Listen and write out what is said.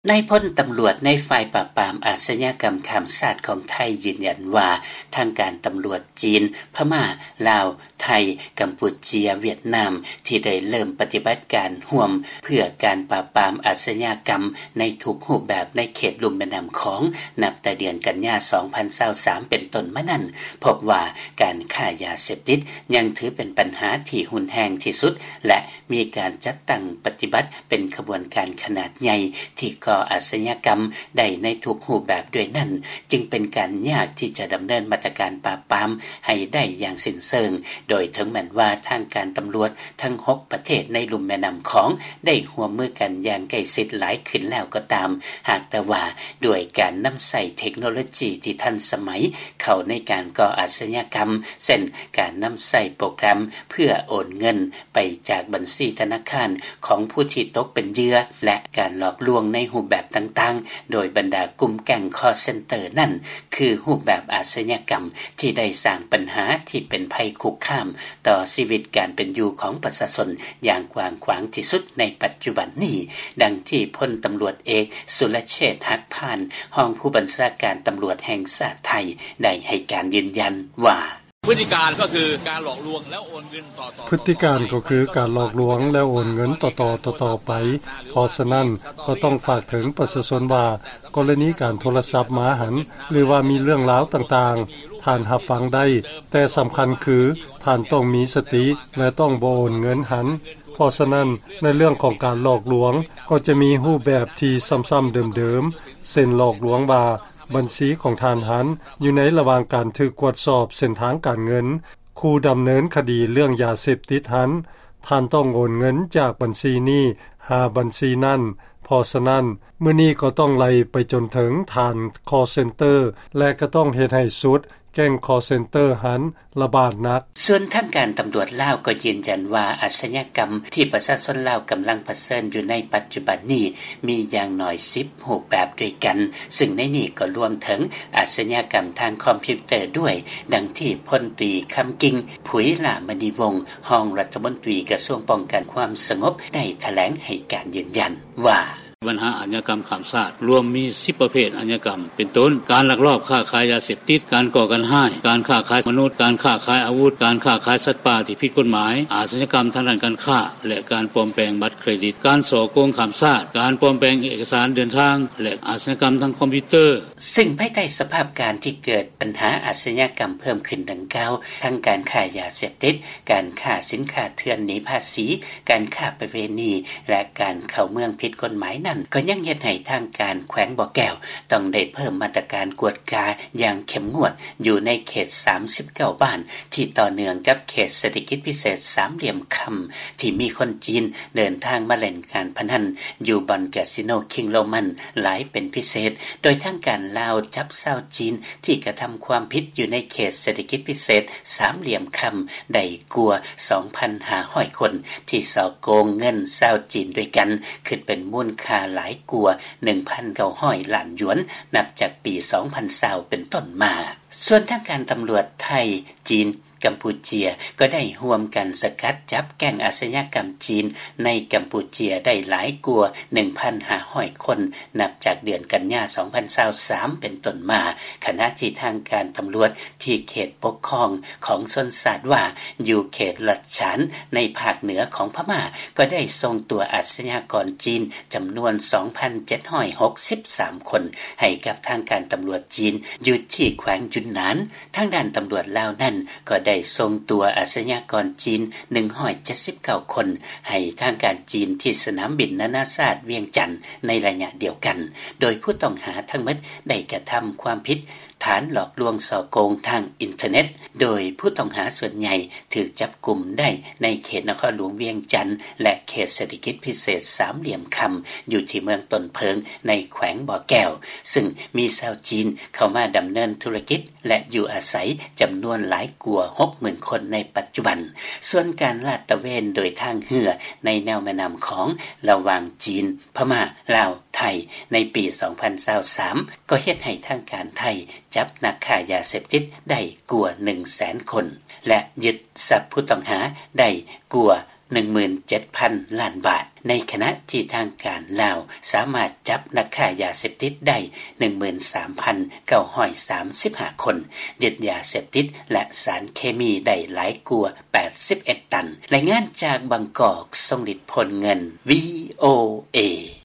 ນາຍພົນຕຳຫຼວດໃນຝ່າຍປາບປາມອາຊຍາກຳຂ້າມຊາດຂອງໄທຢືນຢັນວ່າ ທາງການຕຳຫຼວດຈີນ, ພະມ້າ, ລາວ, ໄທ, ກຳປູເຈຍ, ຫວຽດນາມ ທີ່ໄດ້ເລີ່ມປະຕິບັດການຮ່ວມເພື່ອການປາບປາມອາຊຍາກຳໃນທຸກຮູບແບບໃນເຂດລຸ່ມແມ່ນ້ຳຂອງ ນັບແຕ່ເດືອນກັນຍາ ສອງພັນຊາວສາມ ເປັນຕົ້ນມານັ້ນ ພົບວ່າການຄ້າຢາເສບຕິດຍັງຖືເປັນບັນຫາທີ່ຮຸນແຮງທີ່ສຸດ ແລະ ມີການຈັດຕັ້ງປະຕິບັດເປັນຂະບວນການຂະໜາດໃຫຍ່ ທີ່ກໍ່ອາຊຍາກຳໄດ້ໃນທຸກຮູບແບບດ້ວຍນັ້ນ ຈຶ່ງເປັນການຍາກທີ່ຈະດຳເນີນມາດຕະການປາບປາມໃຫ້ໄດ້ຢ່າງສິ້ນເຊີງ, ໂດຍເຖິງແມ່ນວ່າທາງການຕຳຫຼວດທັງຫົກປະເທດໃນລຸ່ມແມ່ນ້ຳຂອງໄດ້ຮ່ວມມືກັນຢ່າງໃກ້ຊິດຫຼາຍຂຶ້ນແລ້ວກໍຕາມ, ຫາກແຕ່ວ່າດ້ວຍການນຳໃຊ້ເທັກໂນໂລຈີທີ່ທັນສະໄໝເຂົ້າໃນການກໍ່ອາຊຍາກຳ ເຊັ່ນ ການນຳໃຊ້ໂປຣແກຣມເພື່ອໂອນເງິນ ໄປຈາກບັນຊີທະນາຄານຂອງຜູ້ທີ່ຕົກເປັນເຫຍື່ອ ແລະ ການຫຼອກລວງໃນຮູບແບບຕ່າງໆ ໂດຍບັນດາກຸ່ມແກ້ງຄໍເຊັນເຕີນັ້ນ ຄືຮູບແບບອາຊຍາກຳທີ່ໄດ້ສ້າງບັນຫາທີ່ເປັນໄພຄຸກຄາມຕໍ່ຊີວິດການເປັນຢູ່ຂອງປະຊາຊົນຢ່າງກວ້າງຂວາງທີ່ສຸດໃນປັດຈຸບັນນີ້, ດັ່ງທີ່ພົນຕຳຫຼວດເອກ ສຸລະເຊດ ຫັກພານ ຮອງຜູ້ບັນຊາການຕຳຫຼວດແຫ່ງຊາດໄທ ໄດ້ໃຫ້ການຢືນຢັນວ່າ: ພຶດຕິການກໍຄືການຫຼອກລວງແລ້ວໂອນເງິນຕໍ່ໆ ພຶຕິການກໍຄືການຫຼອກລວງແລ້ວໂອນເງິນຕໍ່ໆ ຕໍ່ໆໄປ. ເພາະສະນັ້ນກໍຕ້ອງຝາກເຖິງປະຊາຊົນວ່າ ກໍລະນີການໂທລະສັບມາຫັ້ນ ຫຼືວ່າມີເລື່ອງລາວຕ່າງໆ ທ່ານຮັບຟັງໄດ້, ແຕ່ສຳຄັນຄືທ່ານຕ້ອງມີສະຕິ ແລະ ຕ້ອງບໍ່ໂອນເງິນຫັ້ນ. ເພາະສະນັ້ນ ໃນເລື່ອງຂອງການຫຼອກລວງ ກໍຈະມີຮູບແບບທີ່ຊ້ຳໆເດີມໆ ເຊັ່ນ ຫຼອກລວງວ່າ ບັນຊີຂອງທ່ານຫັ້ນຢູ່ໃນລະຫວ່າງການຖືກກວດສອບເສັ້ນທາງການເງິນ, ຄູ່ດຳເນີນຄະດີເລື່ອງຢາເສບຕິດຫັ້ນ ທ່ານຕ້ອງໂອນເງິນຈາກບັນຊີນີ້ຫາບັນຊີນັ້ນ. ເພາະສະນັ້ນ ມື້ນີ້ກໍຕ້ອງໄລ່ໄປຈົນເຖິງທ່ານຄໍເຊັນເຕີ ແລະ ກໍຕ້ອງເຮັດໃຫ້ສຸດແກ້ງຄໍເຊັນເຕີຫັ້ນລະບາດໜັກ. ສ່ວນທາງການຕຳຫຼວດລາວກໍຢືນຢັນວ່າ ອາຊຍາກຳທີ່ປະຊາຊົນລາວກຳລັງປະເຊີນຢູ່ໃນປັດຈຸບັນນີ້ ມີຢ່າງໜ້ອຍສິບຮູບແບບດ້ວຍກັນ, ຊຶ່ງໃນນີ້ກໍລວມເຖິງອາຊຍາກຳທາງຄອມພິວເຕີດ້ວຍ, ດັ່ງທີ່ພົນຕີ ຄຳກິ່ງ ຜຸຍຫຼ້າມະນີວົງ ຮອງລັດຖະມົນຕີກະຊວງປ້ອງກັນຄວາມສະຫງົບ ໄດ້ຖະແຫຼງໃຫ້ການຢືນຢັນວ່າ: ບັນຫາອາຊຍາກຳຂ້າມຊາດລວມມີສິບປະເພດອາຊຍາກຳ ເປັນຕົ້ນ ການລັກລອບຄ້າຂາຍຢາເສບຕິດ, ການກໍ່ການຮ້າຍ, ການຄ້າຂາຍມະນຸດ, ການຄ້າຂາຍອາວຸດ, ການຄ້າຂາຍສັດປ່າທີ່ຜິດກົດໝາຍ, ອາຊຍາກຳທາງດ້ານການຄ້າ ແລະ ການປອມແປງບັດເຄຣດິດ, ການສໍ້ໂກງຂ້າມຊາດ, ການປອມແປງເອກະສານເດີນທາງ ແລະ ອາຊຍາກຳທາງຄອມພິວເຕີ. ຊຶ່ງພາຍໃຕ້ສະພາບການທີ່ເກີດບັນຫາອາຊຍາກຳເພີ່ມຂຶ້ນດັ່ງກ່າວ, ທັງການຄ້າຢາເສບຕິດ, ການຄ້າສິນຄ້າເຖື່ອນໜີພາສີ, ການຄ້າປະເວນີ ແລະ ການເຂົ້າເມືອງຜິດກົດໝາຍນັ້ນ ກໍຍັງເຮັດໃຫ້ທາງການແຂວງບໍ່ແກ້ວ ຕ້ອງໄດ້ເພີ່ມມາດຕະການກວດກາຢ່າງເຂັ້ມງວດ ຢູ່ໃນເຂດສາມສິບເກົ້າບ້ານ ທີ່ຕໍ່ເນື່ອງກັບເຂດເສດຖະກິດພິເສດສາມຫຼ່ຽມຄຳ ທີ່ມີຄົນຈີນເດີນທາງມາຫຼິ້ນການພະນັນຢູ່ບ່ອນກາສິໂນຄິງໂຣມັນຫຼາຍເປັນພິເສດ, ໂດຍທາງການລາວຈັບຊາວຈີນທີ່ກະທຳຄວາມຜິດຢູ່ໃນເຂດເສດຖະກິດພິເສດສາມຫຼ່ຽມຄຳ ໄດ້ກວ່າສອງພັນຫ້າຮ້ອຍຄົນ ທີ່ສໍ້ໂກງເງິນຊາວຈີນດ້ວຍກັນ ຄິດເປັນມູນຄ່າຫຼາຍກວ່າໜຶ່ງພັນເກົ້າຮ້ອຍລ້ານຢວນ ນັບຈາກປີສອງພັນຊາວເປັນຕົ້ນມາ. ສ່ວນທາງການຕຳຫຼວດໄທ, ຈີນ, ກຳປູເຈຍ ກໍໄດ້ຮ່ວມກັນສະກັດຈັບແກ້ງອາຊຍາກຳຈີນໃນກຳປູເຈຍໄດ້ຫຼາຍກວ່າໜຶ່ງພັນຫ້າຮ້ອຍຄົນ ນັບຈາກເດືອນກັນຍາສອງພັນຊາວສາມເປັນຕົ້ນມາ, ຂະນະທີ່ທາງການຕຳຫຼວດທີ່ເຂດປົກຄອງຂອງຊົນຊາດວ່າ ຢູ່ເຂດລັດສານໃນພາກເໜືອຂອງພະມ້າ ກໍໄດ້ສົ່ງຕົວອາຊຍາກອນຈີນຈຳນວນສອງພັນເຈັດຮ້ອຍຫົກສິບສາມຄົນ ໃຫ້ກັບທາງການຕຳຫຼວດຈີນຢູ່ທີ່ແຂວງຢຸນນານ. ທາງດ້ານຕຳຫຼວດລາວນັ້ນກໍໄດ້ສົ່ງຕົວອາຊຍາກອນຈີນໜຶ່ງຮ້ອຍເຈັດສິບເກົ້າຄົນ ໃຫ້ທາງການຈີນທີ່ສະໜາມບິນນານາຊາດວຽງຈັນໃນໄລຍະດຽວກັນ, ໂດຍຜູ້ຕ້ອງຫາທັງໝົດໄດ້ກະທຳຄວາມຜິດ ຖານຫຼອກລວງສໍ້ໂກງທາງອິນເຕີເນັດ, ໂດຍຜູ້ຕ້ອງຫາສ່ວນໃຫຍ່ຖືກຈັບກຸມໄດ້ໃນເຂດນະຄອນຫຼວງວຽງຈັນ ແລະ ເຂດເສດຖະກິດພິເສດສາມຫຼ່ຽມຄຳ ຢູ່ທີ່ເມືອງຕົ້ນເຜິ້ງໃນແຂວງບໍ່ແກ້ວ, ຊຶ່ງມີຊາວຈີນເຂົ້າມາດຳເນີນທຸລະກິດ ແລະ ຢູ່ອາໄສຈຳນວນຫຼາຍກວ່າຫົກໝື່ນຄົນໃນປັດຈຸບັນ. ສ່ວນການລາດຕະເວນໂດຍທາງເຮືອໃນແນວແມ່ນ້ຳຂອງລະຫວ່າງຈີນ, ພະມ້າ, ລາວ, ໄທ ໃນປີສອງພັນຊາວສາມ ກໍເຮັດໃຫ້ທາງການໄທຈັບນັກຄ້າຢາເສບຕິດໄດ້ກວ່າໜຶ່ງແສນຄົນ ແລະ ຍຶດຊັບຜູ້ຕ້ອງຫາໄດ້ກວ່າໜຶ່ງໝື່ນເຈັດພັນລ້ານບາດ. ໃນຂະນະທີ່ທາງການລາວສາມາດຈັບນັກຄ້າຢາເສບຕິດໄດ້ ໜຶ່ງໝື່ນສາມພັນເກົ້າຮ້ອຍສາມສິບຫ້າຄົນ, ຍຶດຢາເສບຕິດ ແລະ ສານເຄມີໄດ້ຫຼາຍກວ່າແປດສິບເອັດຕັນ. ລາຍງານຈາກບາງກອກ ຊົງລິດ ໂພນເງິນ ວີໂອເອ.